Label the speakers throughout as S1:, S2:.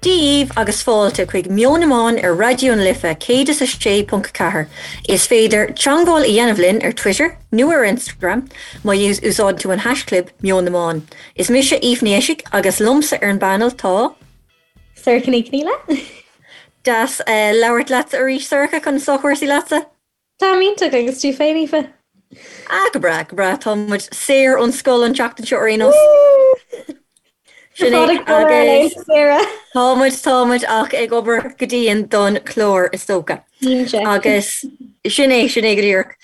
S1: Dia dhaoibh agus fáilte chuig Meon na mBan ar Raidió na Life 106.4. Is féidir teangmháil a dhéanamh linn ar Twitter nó ar Instagram má úsáideann tú an haischlib Meon na mBan. Is mise Aoife Ní Eisig agus liomsa ar an bpainéal tá.
S2: Sorcha Ní Chonghaile.
S1: Deas labhairt leatsa arís Sorcha, conas tá cúrsaí leatsa?
S2: Táim iontach agus tú féin Aoife?
S1: Ah go breá, go breá, tá muid saor ón scoil an tseachtain seo ar aon nós. Sin é agus tá muid, tá muid ach ag obair go dian don chlár is dócha. Agus sin é, sin é go díreach.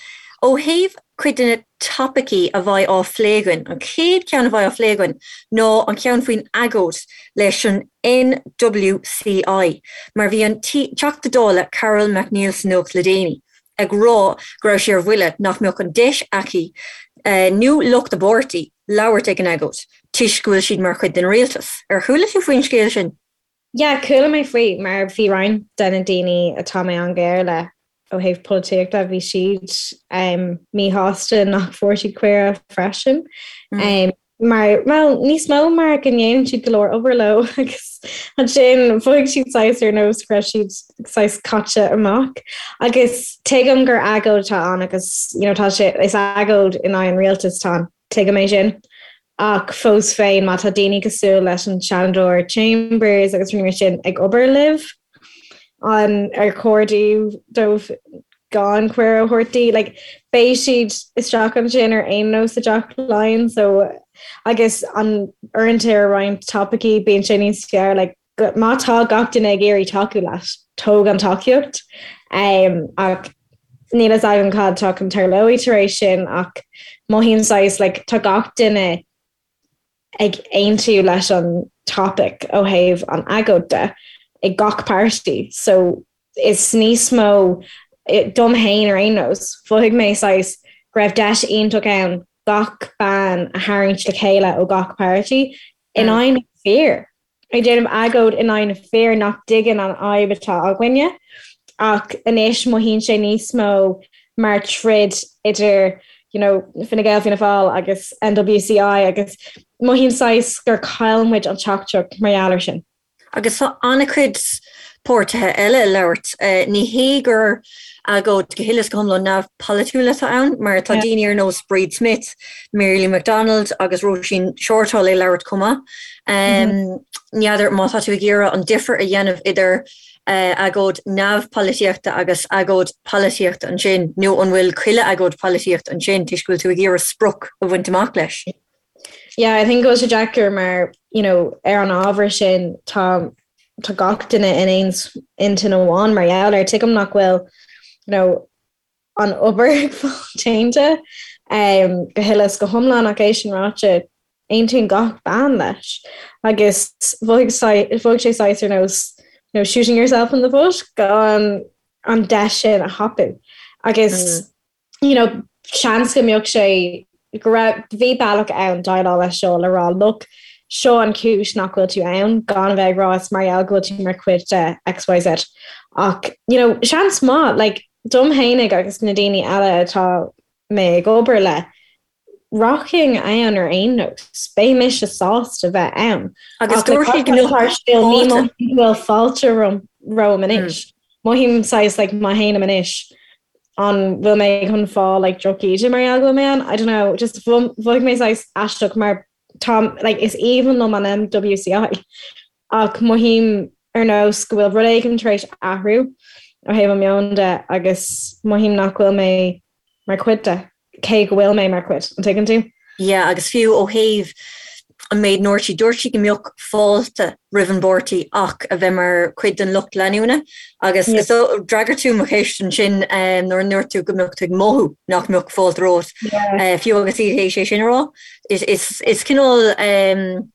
S1: Ó thaobh cuid de na topaicí a bheidh á phlé againn, an chéad cheann a bheidh á phlé againn ná an ceann faoin agóid leis an NWCI, mar bhí an Teachta Dála Carol McNeill sa nuacht le déanaí ag rá go raibh sé ar bhuille nach mbeadh an deis aici nó lucht a páirtí labhairt ag an agóid toisc go bhfuil siad mar chuid den rialtas. Ar chuala tú faoin scéal sin?
S2: Yeah, chuala mé faoi mar bhí roinnt de na daoine atá mé an-ghearr le ó thaobh polaitíochta, bhí siad míshásta nach bhfuair siad cuireadh freisin. Mar, bhuel, níos mó mar go ndéanann siad go leor obair leo agus ansin mhothaigh siad saghas ar nós go raibh siad saghas caite amach. Agus tuigim gur agóid atá ann agus you know, tá sé, is agóid in aghaidh an rialtais atá ann. Tuigim é sin. Ach fós féin, má tá daoine cosúil leis an Seanadóir Chambers agus rudaí mar sin ag obair libh, an ar chóir dóibh gan cuireadh a thabhairt di? Like, beidh siad isteach ansin ar aon nós i dTeach Laighean, so agus an uaireanta ar roinnt topaicí bíonn sé níos fearr, like, má tá gach duine ag iarraidh tacú leat, tóg an tacaíocht. Ach níl fhios agam cad atá chun tarlóidh tar éis sin ach mothaím saghas like tá gach duine ag aontú leis an topic ó thaobh an agóid de ag gach páirtí so is níos mó dom fhéin ar aon nós mhothaigh mé saghas go raibh deis iontach ann gach bean a tharraingt le chéile ó gach páirtí in aghaidh na fir. Ag déanamh agóid in aghaidh na fir nach dtuigeann an fhadhb atá againne. Ach anois mothaíonn sé níos mó mar troid idir you know, Fine Gael, Fianna Fáil agus NWCI agus mothaím saghas gur chaill muid an teachtaireacht mar gheall air sin.
S1: Agus tá an-chuid páirtithe eile ag labhairt. Ní hé gur agóid go huile is go hiomlán neamhpholaitiúil atá ann, mar tá daoine ar nós Bríd Smith, Mary Lou McDonald agus Róisín Shortall ag labhairt chomh maith. N'fheadar má tá tú ag iarraidh an difear a dhéanamh idir agóid neamhpholaitíochta agus agóid polaitíochta ansin, nó an bhfuil chuile agóid polaitíochta ansin toisc go bhfuil tú ag iarraidh sprioc a bhaint amach leis?
S2: Yeah, I think go bhfuil sé deacair mar, you know, ar an ábhar sin tá tá gach duine in aon intinn amháin mar gheall air. Tuigim nach bhfuil, you know, an obair ag fáil déanta um, go huile is go hiomlán ach é sin ráite aontaíonn gach bean leis agus mhothaigh sé saghas ar nós you know, shooting yourself in the foot gan an deis sin a thapú agus mm. you know, seans go mbeadh sé go raibh, bhí bealach ann déileáil leis seo le rá look, seo an chúis nach bhfuil tú ann, gan a bheith ag rá is mar gheall go bhfuil tú mar chuid de XYZ. Ach, you know, seans maith, like, dom fhéinig agus na daoine eile atá mé ag obair le, rachainn ann ar aon nós, beidh mise sásta bheith ann.
S1: Agus dúirt siad go mbeadh
S2: fáilte. Ní mothaím go bhfuil fáilte romham anois. Mothaím saghas like má théim anois an bhfuil mé chun fáil like drochíde mar gheall go bhfuil mé ann? I don't know, just mhothaigh mé saghas aisteach mar tá like is aoibhinn liom an MWCI ach mothaím ar nós go bhfuil rud éigin tar éis athrú ó thaobh an meon de agus mothaím nach bhfuil mé mar chuid de, cé go bhfuil mé mar chuid, an dtuigeann tú?
S1: Yeah, agus fiú ó thaobh an méid a ndúirt sí, dúirt sí go mbeadh fáilte roimh an bpáirtí ach a bheith mar chuid den lucht leanúna agus yeah. so d'fhreagair tú mo cheist ansin um, nuair a ndúirt tú go mbeadh tú ag mothú nach mbeadh fáilte romhat yeah. uh, fiú agus iad théis é sin a rá. Is, is, is cineál um,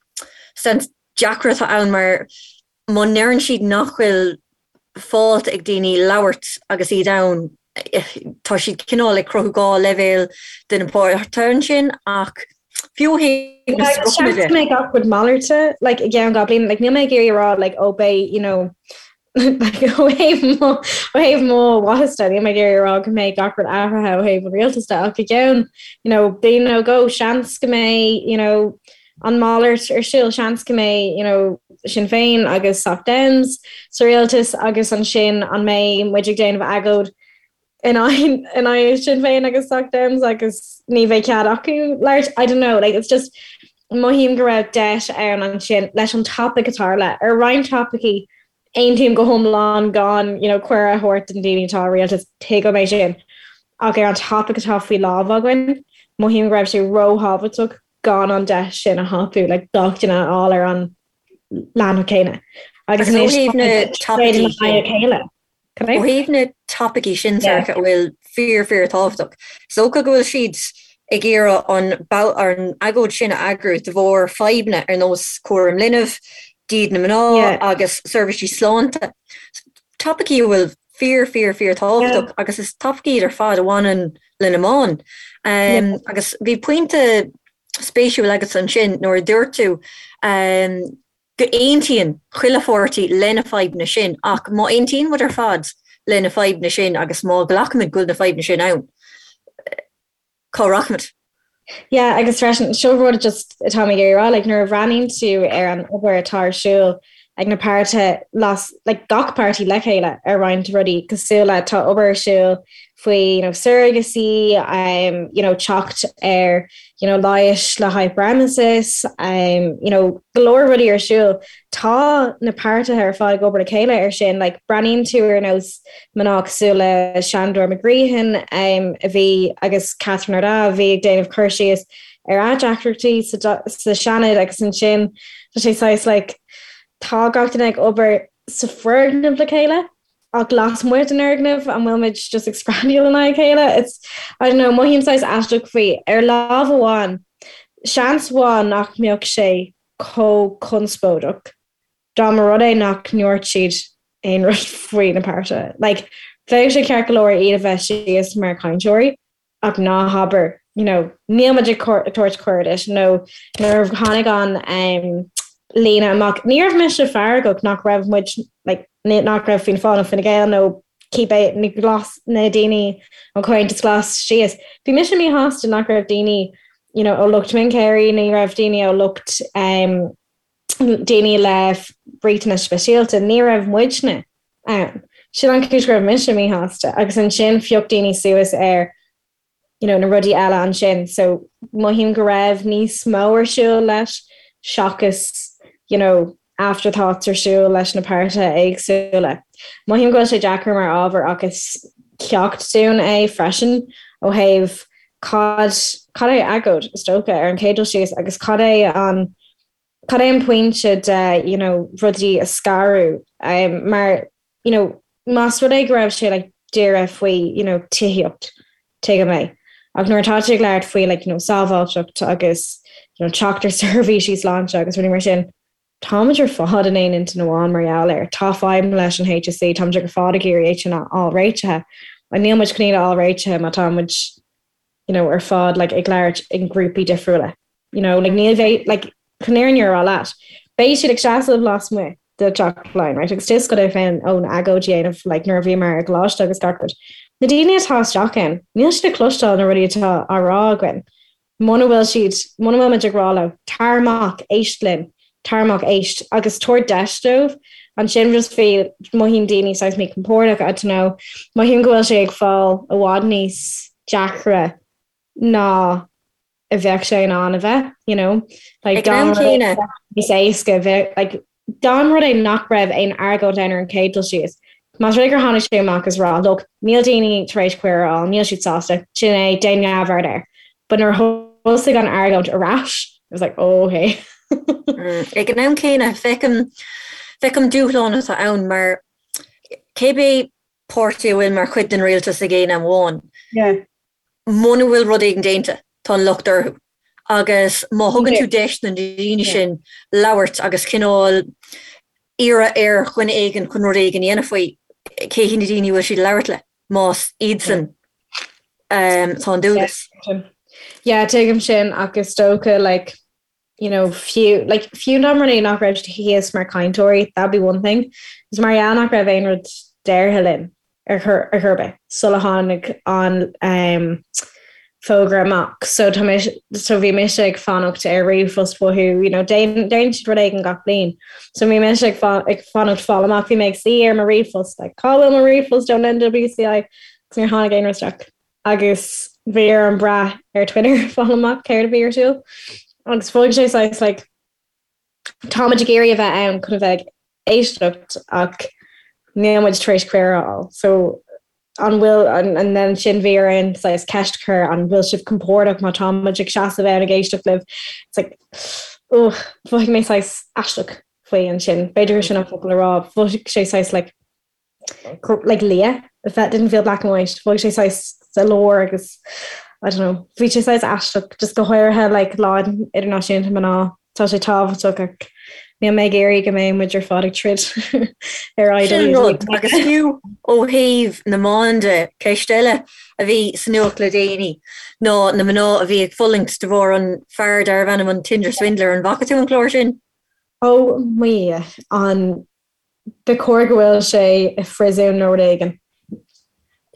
S1: sense deacair atá ann mar Má ndeireann siad nach bhfuil fáilte ag daoine labhairt agus iad ann, tá siad cineál ag cruthú 2 leibhéal de na páirtithe ansin ach fiú ó thaobh
S2: na spriocanna de. Seans go mbeidh gach rud malairte like i gceann 2 bliana, like níl mé ag iarraidh a rá like oh beidh you know like ó thaobh mo ó thaobh mo mhaitheas de níl mé ag iarraidh a rá go mbeidh gach rud athraithe ó thaobh an rialtais de ach i gceann you know bliain nó dhó seans go mbeidh you know. an malairt ar siúl. Seans go mbeidh, you know, Sinn Féin agus Soc Dems sa rialtas agus ansin an mbeidh muid ag déanamh agóid in aghaidh Sinn Féin agus Soc Dems agus ní bheidh cead acu labhairt? I don't know, like it's just mothaím go raibh deis ann ansin leis an topaic a tharla. Ar roinnt topaicí aontaím go hiomlán gan you know cuireadh a thabhairt don daoine atá i rialtas, tuigim é sin. Ach ar an topaic atá faoi lámh againn, mothaím go raibh sé róthábhachtach gan an deis sin a thapú, like gach duine a fháil ar an leathanach céanna.
S1: Agus ó thaobh na topaicí sin, ó thaobh na topaicí sin Sorcha a bhfuil fíor fíor tábhachtach, is dócha go bhfuil siad ag iarraidh an an agóid sin a eagrú de bharr fadhbanna ar nós cúram linbh, díd na mná agus seirbhísí sláinte. Topaicí a bhfuil fíor fíor fíor tábhachtach agus is topaicí iad ar fad a bhaineann le na mná. Agus bhí pointe spéisiúil agat ansin nuair a dúirt tú go aontaíonn chuile pháirtí le na fadhbanna sin ach má aontaíonn muid ar fad le na fadhbanna sin agus má ghlacaimid go bhfuil na fadhbanna sin ann, cá rachaimid?
S2: Yeah, agus freisin, seo rud just atá mé ag iarraidh rá, like, nuair a bhreathnaíonn tú ar an obair atá ar siúl ag na páirtithe las, like, gach páirtí le chéile ar roinnt rudaí cosúil le tá obair ar siúl faoi, you know, surrogacy, um, you know, teacht ar, you know, leighis le hyperemesis, um, you know, go leor rudaí ar siúl. Tá na páirtithe ar fad ag obair le chéile ar sin, like, breathnaíonn tú ar nós mná cosúil le Sandor McGreehan um, a bhí agus Catherine Ardagh a bhí ag déanamh cur síos ar a deacrachtaí sa, sa Seanad agus ansin tá sé saghas like, tá gach duine ag obair sa foirgneamh le chéile ach lasmuigh den fhoirgneamh an bhfuil muid just ag screadaíl in aghaidh a chéile? It's, I don't know, mothaím saghas aisteach faoi. Ar lámh amháin, seans mhaith nach mbeadh sé chomh conspóideach dá mba rud é nach ndúirt siad aon rud faoi na páirtithe. Like, bheadh sé ceart go leor iad a bheith síos mar chainteoirí ach ná habair, you know, níl muid ag tabhairt cuireadh duit nó nuair a tháinig an um, líne amach, ní raibh mise feargach nach raibh muid, like, nach raibh Fianna Fáil nó Fine Gael nó cibé na glas na daoine ón Chomhaontas Glas síos. Bhí mise míshásta nach raibh daoine you know, ó lucht mionchéirí, ní raibh daoine ó lucht um, daoine le riachtanais speisialta, ní raibh muidne ann. Sin an chúis go raibh mise míshásta agus ansin phioc daoine suas ar you know, na rudaí eile ansin. So mothaím go raibh níos mó ar siúl leis seachas you know, afterthoughts ar siúl leis na páirtithe éagsúla. Mothaím go bhfuil sé deacair mar ábhar ach is ceacht dúinn é freisin ó thaobh cad cad é agóid is dócha ar an chéad dul síos agus cad é an cad é an pointe de you know, rudaí a scaradh um, mar you know, más rud é go raibh sé like, dírithe faoi you know, tithíocht tuigim é. Ach nuair atá tú ag labhairt faoi like, you know, sábháilteacht agus you know, teacht ar seirbhísí sláinte agus rudaí mar sin, táimid ar fad in aon intinn amháin mar gheall air. Tá fadhb leis an HSE, táimid ar fad ag iarraidh é sin a fháil réitithe. Ach níl muid chun iad a fháil réitithe má tá muid you know, ar fad like, ag labhairt i ngrúpaí difriúla. You know, like, níl bheidh, like, chun an fhírinne a rá leat. Beidh siad ag seasamh lasmuigh de Teach Laighean, right? Agus is go féin ón agóid a dhéanamh like, nuair a bhíomar i gcoláiste agus gach rud. Na daoine atá isteach ann, níl siad ag cloisteáil na rudaí atá á rá againn. Muna bhfuil siad, muna bhfuil muid ag rá leo, tar amach, éist linn, tar amach, éist, agus tabhair deis dóibh, ansin just bhí, mothaíonn daoine saghas míchompordach, I don't know, mothaím go bhfuil sé ag fáil i bhfad níos deacra ná a bheadh sé in ann a bheith, you know, like
S1: Ag an am céanna.
S2: níos éasca bheith, like, dá mba rud é nach raibh aon argóint ann ar an chéad dul síos, más rud é gur tháinig sé amach is rá, look, níl daoine tar éis cuireadh a fháil, níl siad sásta, sin é, déan neamhaird air. But nuair a thosaigh an argóint ar ais, it was like, oh, okay.
S1: Ag an am céanna, feicim, feicim dúshlán atá ann mar cébé páirtí a bhfuil mar chuid den rialtas ag aon am amháin,
S2: Yeah.
S1: muna bhfuil rud éigin déanta, tá an locht orthu. Agus má thugann tú deis na daoine sin labhairt agus cineál iarraidh ar dhuine éigin chun rud éigin a dhéanamh faoi, cé hiad na daoine a bhfuil siad ag labhairt le, más iadsan atá an dualgas.
S2: Yeah, tuigim sin ach is dócha like, you know, fiú, like, fiú dá mba rud é nach raibh siad thíos mar cainteoirí, that'd be one thing. Is mar gheall nach raibh aon rud deartha linn ar chor, ar chor ar bith sula tháinig an, um, Fógra amach. So tá mé, so bhí mise ag fanacht ar ríomhphost uathu, you know, déanann siad rud éigin gach bliain. So bhí mise ag ag fanacht fáil amach, bhí mé ag suí ar mo ríomhphost, like, cá bhfuil mo ríomhphost ón NWCI? Agus níor tháinig aon rud isteach. Agus bhí orm brath ar Twitter fáil amach céard a bhí ar siúl. Agus mhothaigh sé saghas like, Táimid ag iarraidh a bheith ann chun a bheith ag éisteacht ach níl muid tar éis cuireadh a fháil. So an bhfuil, and then ansin bhí orainn saghas ceist a chur, an bhfuil sibh compordach má tá muid ag seasamh ann ag éisteacht libh? It's like, ugh, mhothaigh mé saghas aisteach faoi ansin. B'fhéidir gur sin an focal le rá. Mhothaigh sé saghas like, like liath, it didn't feel black and white, mhothaigh sé saghas sa lár agus I don't know, bhí sé saghas aisteach, just go háirithe like Lá Idirnáisiúnta Mná, tá sé tábhachtach ach níl mé ag iarraidh go mbeidh muid ar fad ag troid ar
S1: aghaidh Sin rud, agus fiú ó thaobh na mban de, ceist eile a bhí sa nuacht le déanaí ná na mná a bhí ag fulaingt de bharr an fear darbh ainm an Tinder Swindler, an bhfaca tú an clár sin?
S2: Ó mo Dhia, an Ba chóir go bhfuil sé i phríosún nó rud éigin.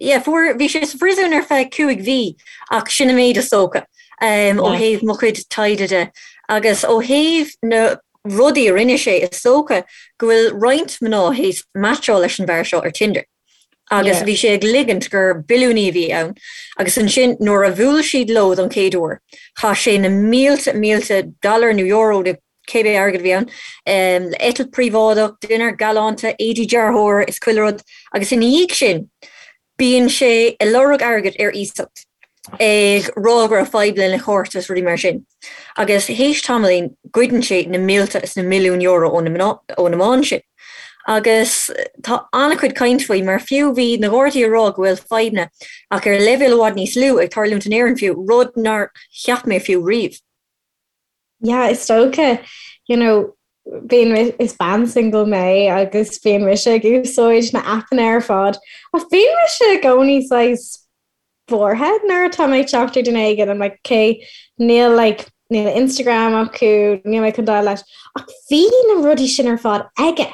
S1: Yeah, fuair, bhí sé sa phríosún ar feadh 5 mhí ach sin an méid is dócha ó thaobh mo chuid taighde de. Agus ó thaobh na rudaí a rinne sé, is dócha go bhfuil roinnt mná théis meaitseáil leis an bhfear seo ar Tinder. Agus bhí sé ag ligint gur billiúnaí a bhí ann. Agus ansin nuair a bhuail siad leo don chéad uair, chaith sé na mílte, mílte dollar nó euro nó cibé airgead a bhí ann, le eitilt príobháideach, dinnéar galánta, éadaí dearthóra is chuile rud, agus ina dhiaidh sin bíonn sé ag lorg airgid ar iasacht, ag rá go raibh fadhb lena chárta is rudaí mar sin. Agus théis tamaillín goideann sé na mílte is na milliúin euro ó na ó na mban sin. Agus tá an-chuid caint faoi mar fiú bhí na Gardaí ag rá go bhfuil fadhbanna ach ar leibhéal i bhfad níos lú ag tarlúint in Éirinn fiú, rud nár cheap mé fiú riamh.
S2: Yeah, is dócha, you know, bíonn, is bean single mé agus bíonn mise ag úsáid na aipeanna ar fad ach bíonn mise i gcónaí saghas buartha nuair atá mé ag teacht ar duine éigin, I'm like, okay, níl like, níl Instagram acu, níl mé chun dul leis. Ach bhí na rudaí sin ar fad aige.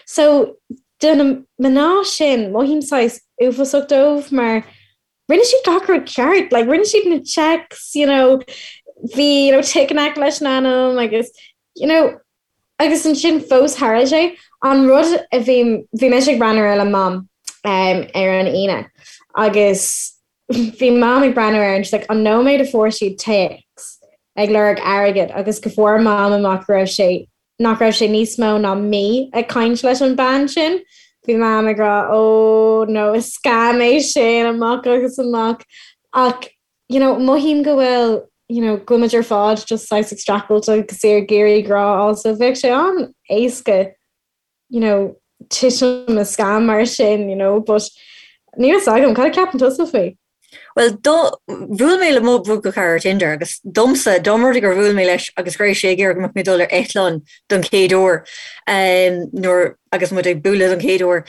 S2: So, do na mná sin, mothaím saghas uafásach dóibh mar rinne siad gach rud ceart, like rinne siad na checks, you know, bhí, you know, tick in aice leis an ainm agus, you know, agus ansin fós tharla sé. An rud a bhí, bhí mise ag breathnú air le Mam um, ar an Aoine agus bhí Mam ag breathnú air and she's like, an nóiméad a fuair siad téacs ag lorg airgid agus go fuair Mam amach go raibh sé nach raibh sé níos mó ná mí ag caint leis an bean sin. Bhí Mam ag rá oh no is scam é sin amach agus amach ach you know mothaím go bhfuil you know go bhfuil muid ar fad just saghas ag streachailt agus ag iarraidh grá a fháil so bheadh sé an-éasca you know titim i scam mar sin you know but níl fhios agam cad a ceapann tusa faoi?
S1: Bhuel, do, bhuail mé le mo bhuailchara ar Tinder agus domsa, dá mba rud é gur bhuail mé leis agus go raibh sé ag iarraidh go mbeadh mé ag dul ar eitleán don chéad uair, nuair, agus muid ag bualadh don chéad uair,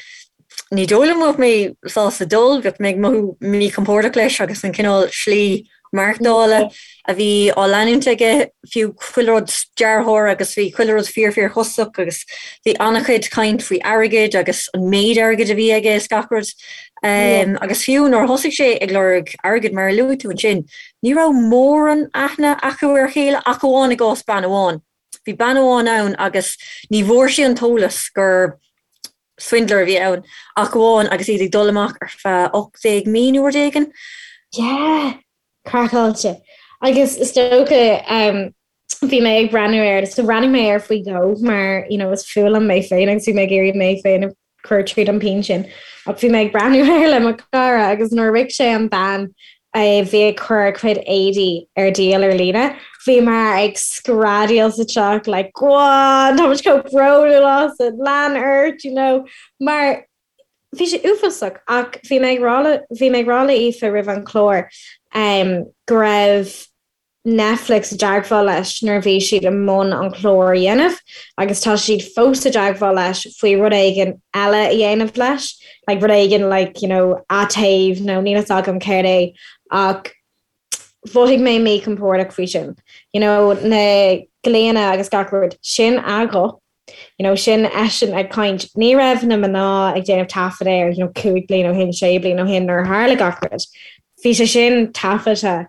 S1: ní dóigh liom go mbeadh mé sásta dul, bheadh mé ag mothú míchompordach leis agus an cineál slí maireachtála a bhí á leanúint aige, fiú chuile rud dearthóir agus bhí chuile rud fíor fíor chostasach agus bhí an-chuid caint faoi airgead agus an méid airgid a bhí aige is gach rud. Agus fiú nuair a thosaigh sé ag lorg airgid mar a luaigh tú ansin, ní raibh mórán aithne acu ar a chéile ach amháin i gcás bean amháin. Bhí bean amháin ann agus ní bhfuair sí an t-eolas gur swindler a bhí ann ach amháin agus iad ag dul amach ar feadh 18 mí nó rud éigin.
S2: Yeah! Craiceáilte. Agus is dócha bhí mé ag breathnú air, so bhreathnaigh mé air faoi dhó mar you know is fuath liom mé féin agus bhí mé ag iarraidh mé féin a chur tríd an pian sin. Ach bhí mé ag breathnú air le mo chara agus nuair a shroich sé an bean a bhí ag cur a cuid éadaí ar díol ar líne, bhíomar ag screadaíl sa teach like go on, tá muid chomh bródúil asat, lean ort, you know, mar bhí sé uafásach ach bhí mé ag rá le, bhí mé ag rá le Aoife roimh an chlár um, go raibh Netflix i dteagmháil leis nuair a bhí siad i mbun an clár a dhéanamh agus tá siad fós i dteagmháil leis faoi rud éigin eile a dhéanamh leis, like rud éigin like you know atéamh nó níl fhios agam céard é ach mhothaigh mé míchompordach faoi sin. You know na glaonna agus gach rud, sin a ghuth, you know sin eisean ag caint. Ní raibh na mná ag déanamh taifead air you know 5 bliain ó shin, 6 bliain ó shin nuair a tharla gach rud. Bhí sé sin taifeadta.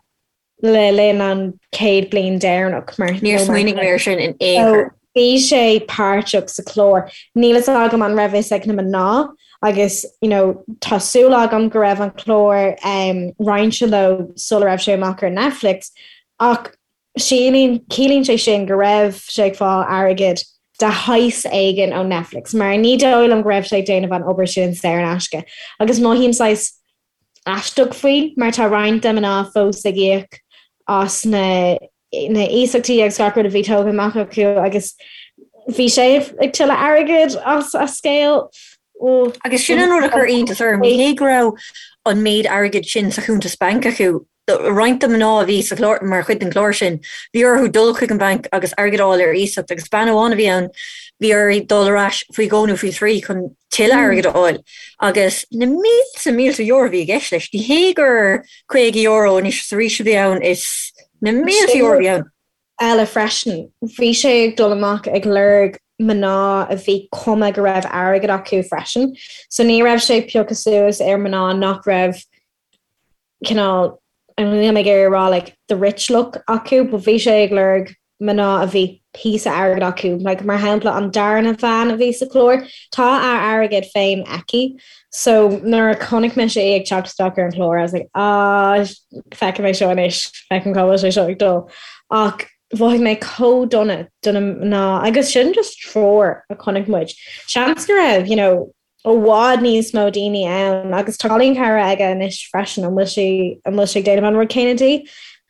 S2: Le linn an chéad bliain deireanach
S1: mar Níor smaoinigh mé ar sin in aon chor.
S2: Bhí sé páirteach sa chlár. Níl fhios agam an raibh fhios ag na mná agus you know tá súil agam go raibh an clár um, roinnte leo sula raibh sé amach ar Netflix ach sílín ciallaíonn sé sin go raibh sé ag fáil airgead de shaghas éigin ó Netflix mar ní dóigh liom go raibh sé ag déanamh an obair sin saor in aisce agus mothaím saghas aisteach faoi mar tá roinnt de mná fós ag íoc as na na iasachtaí agus gach rud a bhí tógtha amach acu agus bhí sé ag tuilleamh airgid as a scéal.
S1: Agus sin an rud a chuir iontas orm, ní hé go raibh an méid airgid sin sa chuntas bainc acu, roinnt de mná a bhí sa chlár, mar chuid den chlár sin, bhí orthu dul chuig an bhanc agus airgead a fháil ar iasacht agus bean amháin a bhí ann, bhí uirthi dul ar ais faoi dhó nó faoi thrí chun tuilleadh airgid a fháil agus na mílte mílte euro a bhí i gceist leis. Ní hé gur €50 anois is arís a bhí ann, is na mílte euro a bhí ann.
S2: eile freisin. Bhí sé ag dul amach ag lorg mná a bhí cuma go raibh airgead acu freisin. So ní raibh sé ag piocadh suas ar mná nach raibh cineál, níl mé ag iarraidh a rá like the rich look acu, but bhí sé ag lorg mná a bhí píosa airgid acu. Like mar shampla an darna bhean a bhí sa chlár, tá a airgead féin aici. So nuair a chonaic mise í ag teacht isteach ar an chlár, I was like, ah, feicfidh mé seo anois, feicim cá bhfuil sé seo ag dul. Ach mhothaigh mé chomh dona do na mná agus sin just triúr a chonaic muid. Seans go raibh, you know, i bhfad níos mó daoine ann agus tá cailín cara aige anois freisin, an bhfuil sí, an bhfuil sé ag déanamh an rud céanna di?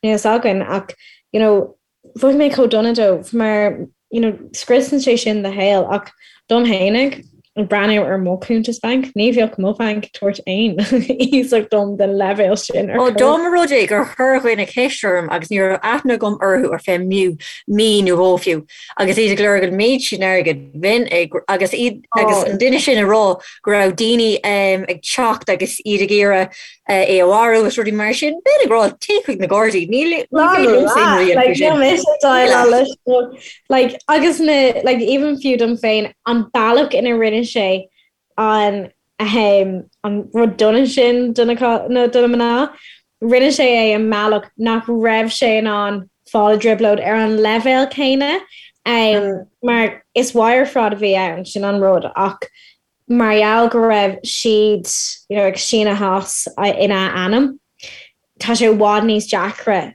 S2: Níl fhios againn ach you know mhothaigh mé chomh dona dóibh mar you know scriosann sé sin do shaol ach dom fhéinig ag breathnú ar mo chuntas banc, ní bheadh mo bhanc ag tabhairt aon iasacht dom den leibhéal sin
S1: ar Ó chor. dá mba rud é gur chuir dhuine ceist orm agus ní raibh aithne agam orthu ar feadh mí nó dhó fiú, Agus iad ag lorg an méid sin airgid, bheinn ag, agus iad, agus an duine sin ag rá go raibh daoine ag teacht agus iad ag iarraidh é a mharú agus rudaí mar sin, bheinn ag rá téigh chuig na Gardaí, níl, ní féidir liomsa aon rud a dhéanamh faoi sin. Mise
S2: déileáil leis like, agus na, like, even fiú dom féin, an bealach ina rinne sé an ahem, an rud dona sin do na do na mná. Rinne sé é i mbealach nach raibh sé in ann fáil i dtrioblóid ar an leibhéal céanna, mar is wire fraud a bhí ann, sin an rud, ach mar gheall go raibh siad you know, ag síneadh as ina ainm, tá sé i bhfad níos deacra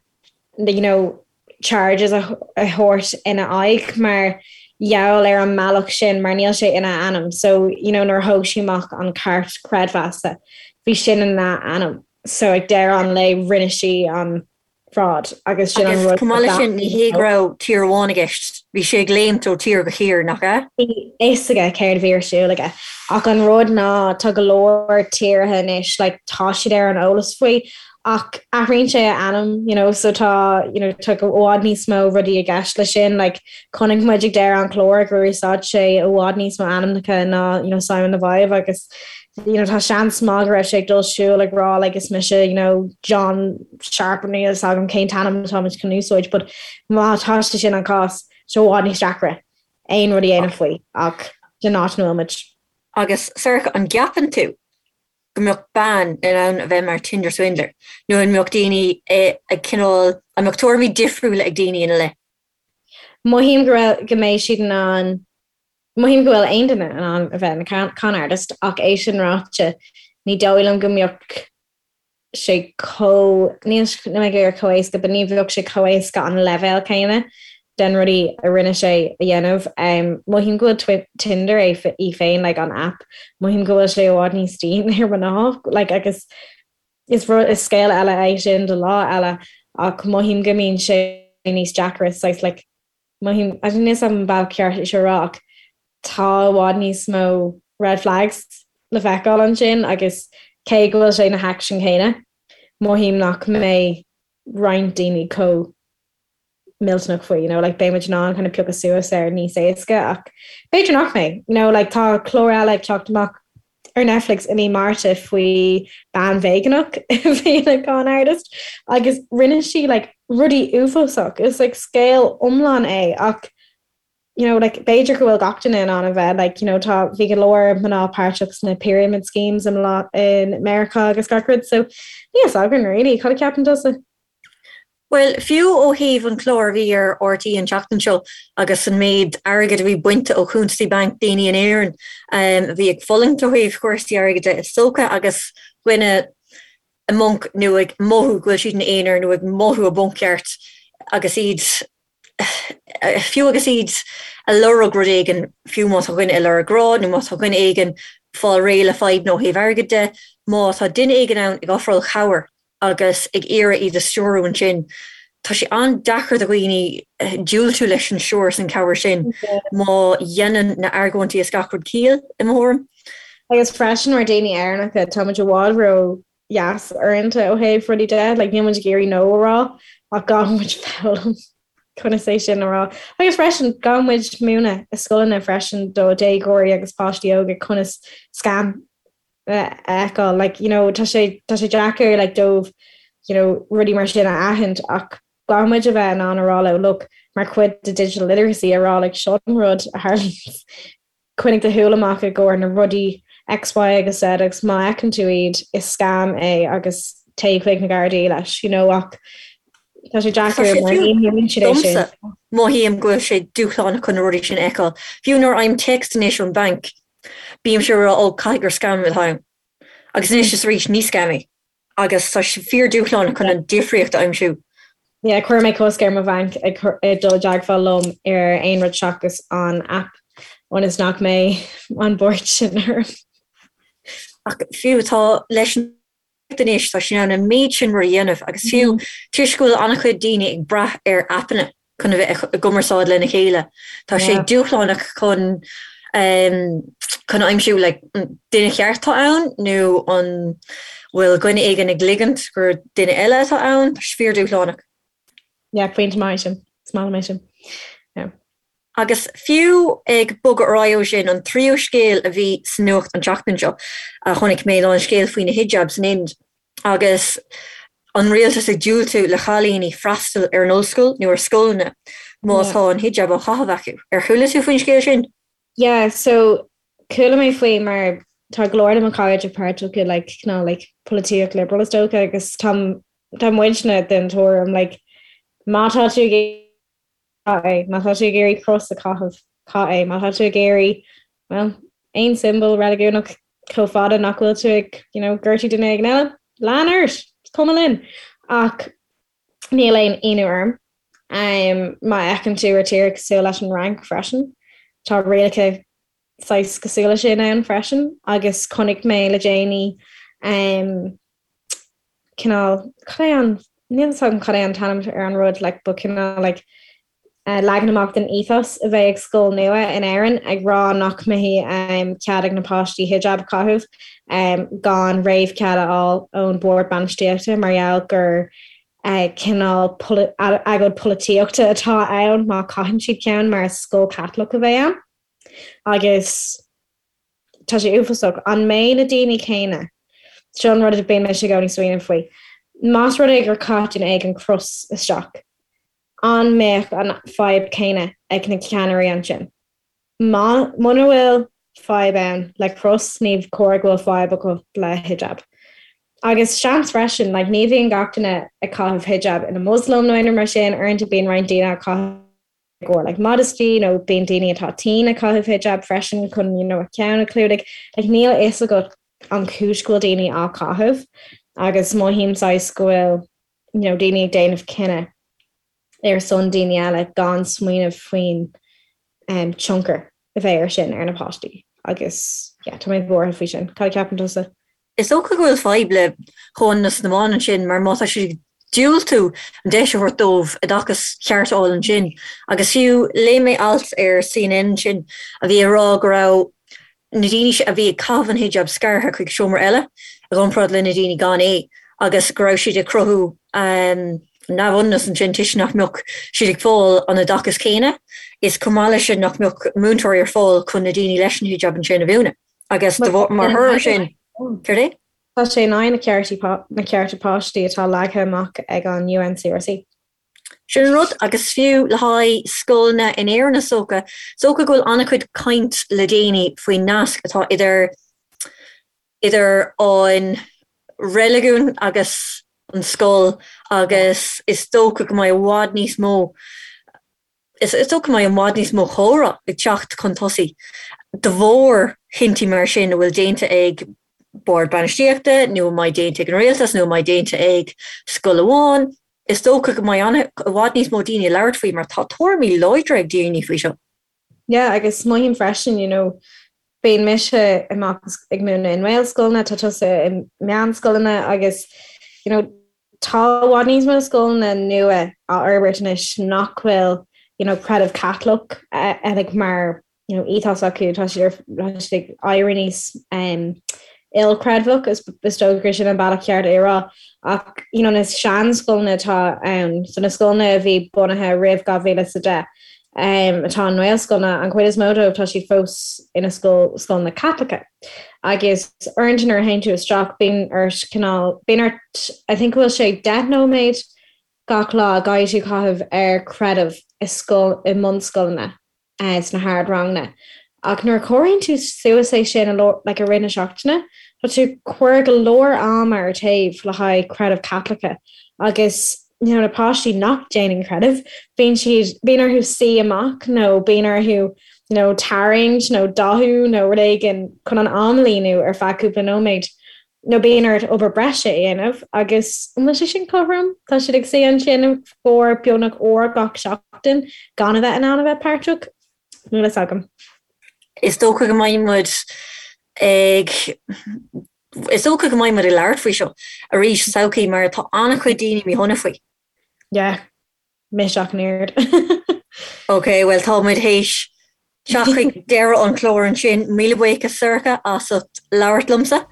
S2: you know, charges a thabhairt ina aghaidh mar gheall ar an mbealach sin mar níl sé ina ainm so you know nuair a thóg sí amach an cairt creidmheasa bhí sin ina ainm so ag deireadh an lae rinne sí an fraud agus sin an
S1: rud. Chomh maith leis sin ní hé go raibh tír amháin i gceist, bhí sé ag léimt ó tír go tír, nach
S2: ea? Bhí fhios aige céard a bhí ar siúl aige ach an rud ná tá go leor tíortha anois like tá siad ar an eolas faoi Ach athraíonn sé a ainm, you know, so tá, you know, tá i bhfad níos mó rudaí i gceist leis sin, like, chonaic muid ag deireadh an chláir gur úsáid sé i bhfad níos mó ainmneacha ná, you know, Simon Leviev agus, you know, tá seans maith go raibh sé ag dul siúl ag rá, like, is mise, you know, John Sharp, níl fhios agam cén t-ainm atá muid chun úsáid, but má tá sé sin an cás, tá sé i bhfad níos deacra aon rud a dhéanamh faoi ach den áit ina bhfuil muid.
S1: Agus, Sorcha, an gceapann tú go mbeadh bean in ann a bheith mar Tinder Swindler nó an mbeadh daoine ag cineál, an mbeadh tuairimí difriúla ag daoine ina leith?
S2: Mothaím go raibh, go mbeidh siad in ann, mothaím go bhfuil aon duine in ann a bheith ina con artist ach é sin ráite, ní dóigh liom go mbeadh sé chomh, níl mé ag iarraidh chomh éasca, but ní bheadh sé chomh éasca an leibhéal céanna den rudaí a rinne sé a dhéanamh. Mothaím go bhfuil Tinder é í féin, like an app, mothaím go bhfuil sé i bhfad níos dian ar mhná, like agus is rud, is scéal eile é sin do lá eile ach mothaím go mbíonn sé níos deacra, saghas like mothaím, I don't know an bealach ceart é seo a rá ach tá i bhfad níos mó red flags le feiceáil ansin agus cé go bhfuil sé na haicsin céanna, mothaím nach mbeidh roinnt daoine chomh millteanach faoi, you know, like beidh muid in ann kind of piocadh suas air níos éasca ach b'fhéidir nach mbeidh, you know, like tá clár eile ag teacht amach ar Netflix i mí Márta faoi bean veigeánach a bhí ina con artist agus rinne sí like rudaí uafásach, is like scéal iomlán é ach you know, like b'fhéidir go bhfuil gach duine in ann a bheith like, you know, tá bhí go leor mná páirteach sna pyramid schemes i in Meiriceá agus gach rud so níl fhios againn really, cad a cheapann tusa?
S1: Bhuel, fiú ó thaobh an clár a bhí ar RTÉ an tseachtain seo agus an méid airgid a bhí bainte ó chuntasaí bainc daoine in Éirinn a bhí ag fulaingt ó thaobh chúrsaí airgid de is dócha agus dhuine i mponc nó ag mothú go bhfuil siad ina aonar nó ag mothú i bponc ceart agus iad fiú agus iad ag lorg rud éigin, fiú má tá dhuine ag lorg grá nó má tá dhuine éigin ag fáil réidh le fadhbanna ó thaobh airgid de, má tá duine éigin ann ag ofráil cabhair agus ag iarraidh iad a stiúrú ansin, tá sé an-deacair do dhaoine diúltú leis an stiúir is an cabhair sin má dhéanann na argóintí is gach rud ciall, i mo thuairim.
S2: Agus freisin mar daoine Éireannacha, tá muid i bhfad ró dheas uaireanta ó thaobh rudaí de, like níl muid ag iarraidh no a rá ach caithfidh muid foghlaim conas é sin a rá. Agus freisin caithfidh muid múineadh i scoileanna freisin do déagóirí agus páistí óga conas scam a fheiceáil. Like, you know, tá sé tá sé deacair like dóibh you know, rudaí mar sin a aithint ach caithfidh muid a bheith in ann a rá leo look mar chuid de digital literacy a rá like seo an rud a tharlaíonn Coinnigh do shúil amach i gcomhair na rudaí X, Y agus Z agus má fheiceann tú iad, is scam é agus téigh chuig na Gardaí leis, you know ach tá sé deacair mar ní mhúineann siad é sin.
S1: Domsa, mothaím go bhfuil sé dúshlánach chun na rudaí sin a fheiceáil. Fiú nuair a fhaighim téacs anois ón bhanc, bímse ag rá 'ó, caithfidh gur scam atá ann'. Agus anois is arís, ní scam é. agus tá sé fíor-dúshlánach chun an difríocht a aimsiú.
S2: Yeah, chuir mé cosc ar mo bhanc ag dul i dteagmháil liom ar aon rud seachas an app ionas nach mbeidh an buairt sin orm.
S1: Ach fiú tá leis an anois tá sé in ann an méid sin rud a dhéanamh agus fiú toisc go bhfuil an-chuid daoine ag brath ar aipeanna chun a bheith i gcumarsáid lena chéile. Tá sé dúshlánach chun chun aimsiú like an duine cheart atá ann nó an bhfuil dhuine éigin ag ligint gur duine eile atá ann, tá sé fíor-dúshlánach.
S2: Yeah, pointe maith sin. Is maith liom é sin. Yeah.
S1: Agus fiú ag bogadh ar aghaidh ó sin, an tríú scéal a bhí sa nuacht an tseachtain seo a chonaic mé ná an scéal faoi na hijabs san Ind. agus an rialtas ag diúltú le chailíní freastal ar an ollscoil nó ar scoileanna má tá an hijab á chaitheamh acu. Ar chuala tú faoin scéal sin?
S2: Yeah, so chuala mé faoi mar tá go leor de mo chairde páirteach i like cineál like polaitíocht liberal is dócha agus tá tá muidne den tuairim like má tá tú ag caith é, má tá tú ag iarraidh cros a chaitheamh, caith é, má tá tú ag iarraidh, well, aon tsiombail reiligiúnach chomh fada nach bhfuil tú ag, you know, gortú duine éigin eile, lean ort, is cuma linn. Ach níl aon ionadh orm um, má fheiceann tú ar tír cosúil leis an Fhrainc freisin, tá rialacha saghas cosúil leis sin ann freisin agus chonaic mé le déanaí um, cineál, cad é an, níl fhios agam cad é an t-ainm ar an rud, like, but cineál like, eh, leagan amach den ethos a bheidh ag scoil nua in Éirinn ag rá nach mbeidh um, cead ag na páistí hijab a chaitheamh um, gan réamhchead a fháil ón bord bainistíochta mar gheall gur eh, cineál agóid polaitíochta atá ann má chaitheann siad ceann mar is scoil Caitliceach a bheidh ann. Agus tá sé uafásach. An mbeidh na daoine céanna, seo an rud a bíonn mise i gcónaí ag smaoineamh faoi, más rud é gur chaith duine éigin cros isteach, an mbeadh an fadhb céanna ag na ceannairí ansin? Má, muna bhfuil fadhb ann le cros, ní chóir go bhfuil fadhb acu le hijab. Agus seans freisin, like, ní bhíonn gach duine ag caitheamh hijab ina Muslim nó aon rud mar sin, uaireanta bíonn roinnt daoine á caitheamh i gcomhair like modesty nó bíonn daoine atá tinn ag caitheamh hijab freisin chun you know a ceann a chlúdach. Like níl a fhios agat an chúis go bhfuil daoine á caitheamh agus mothaím saghas go bhfuil you know daoine ag déanamh cinneadh ar son daoine eile gan smaoineamh faoin um tionchar a bheidh ar sin ar na páistí agus yeah tá mé buartha faoi sin. Cad a cheapann tusa?
S1: Is dócha go bhfuil fadhb le comhionannas na mban ansin mar má tá siad ag diúltú an deis a thabhairt dóibh oideachas ceart a fháil ansin agus fiú léigh mé alt ar CNN ansin a bhí ag rá go raibh na daoine a bhí ag caitheamh an hijab scartha chuig seomra eile i gcomparáid le na daoine gan é agus go raibh siad ag cruthú neamhionannas ansin toisc nach mbeadh siad ag fáil an oideachas céanna is chomh maith leis sin nach mbeadh múinteoirí ar fáil chun na daoine leis an hijab ansin a mhúineadh. Agus de bharr, mar thoradh air sin, céard é?
S2: Tá sé in aghaidh na ceartaí, na cearta páistí atá leagtha amach ag an UNCRC.
S1: Sin an rud, agus fiú le haghaidh scoileanna in Éirinn is dócha, is dócha go bhfuil an-chuid caint le déanaí faoin nasc atá idir, idir an reiligiún agus. an scoil agus is dócha go mbeidh i bhfad níos mó is dócha go mbeidh i bhfad níos mó comhrá ag teacht chun tosaigh de bharr chinntí mar sin a bhfuil déanta ag bord bainistíochta nó a mbeidh déanta ag an rialtas nó a mbeidh déanta ag scoil amháin. Is dócha go mbeidh i bhfad níos mó daoine ag labhairt faoi mar tá tuairimí láidre ag daoine faoi seo.
S2: Yeah, agus mothaím freisin, you know, bíonn mise amach ag múineadh i nGaelscoileanna, tá tusa i meánscoileanna agus, you know, tá i bhfad níos mó scoileanna nua á fhorbairt anois nach bhfuil, you know, creideamh Caitliceach eh, like, mar you know, ethos acu, tá siad ar tá siad ag éirí níos um, ilchreidmheach is is dócha gur sin an bealach ceart é a rá. Ach you know, na seanscoileanna atá ann, so na scoileanna a bhí bunaithe roimh 2010, um, atá i nGaelscoileanna, an chuid is mó dóibh tá siad fós ina scoil scoileanna Caitliceacha. Agus uaireanta nuair a théann tú isteach bíonn ort cineál bíonn ort I think go bhfuil sé 10 nóiméad gach lá a gcaithfidh tú caitheamh ar creideamh i scoil i mbunscoileanna. sna hardranganna. Ach nuair a chomhaireann tú suas é sin like i rith na seachtaine, tá tú ag cur go leor ama ar taobh le haghaidh creideamh Caitliceach. Agus you know, na páistí nach déanann creideamh, bíonn siad, bíonn orthu suí amach nó bíonn orthu you know, tarraingt nó dathú nó rud éigin chun an am a líonadh ar feadh cúpla nóiméad. Nó bíonn ort obair breise a dhéanamh agus an bhfuil sé sin cothrom? Tá siad ag suí ansin i gcomhair beagnach uair gach seachtain gan a bheith in ann a bheith páirteach? Níl a fhios agam.
S1: Is dócha go mbeidh muid ag Is dócha go mbeidh muid ag labhairt faoi seo arís sa todhchaí mar tá an-chuid daoine míshona faoi.
S2: Yeah. Mise ach an oiread.
S1: Ok, bhuel tá muid théis teacht chuig deireadh an chláir ansin. Míle buíochas Sorcha as ucht labhairt liomsa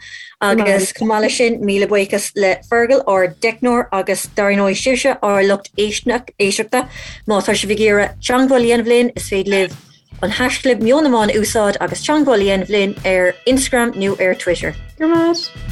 S1: agus chomh maith leis sin míle buíochas le Fergal ár dteicneoir agus dar ndóigh sibhse ár lucht éisteachta. Má tá sibh ag iarraidh teagmháil a dhéanamh linn is féidir libh an haischlib Meon na mBan a úsáid agus teagmháil a dhéanamh linn ar Instagram nó ar Twitter.
S2: Go raibh maith.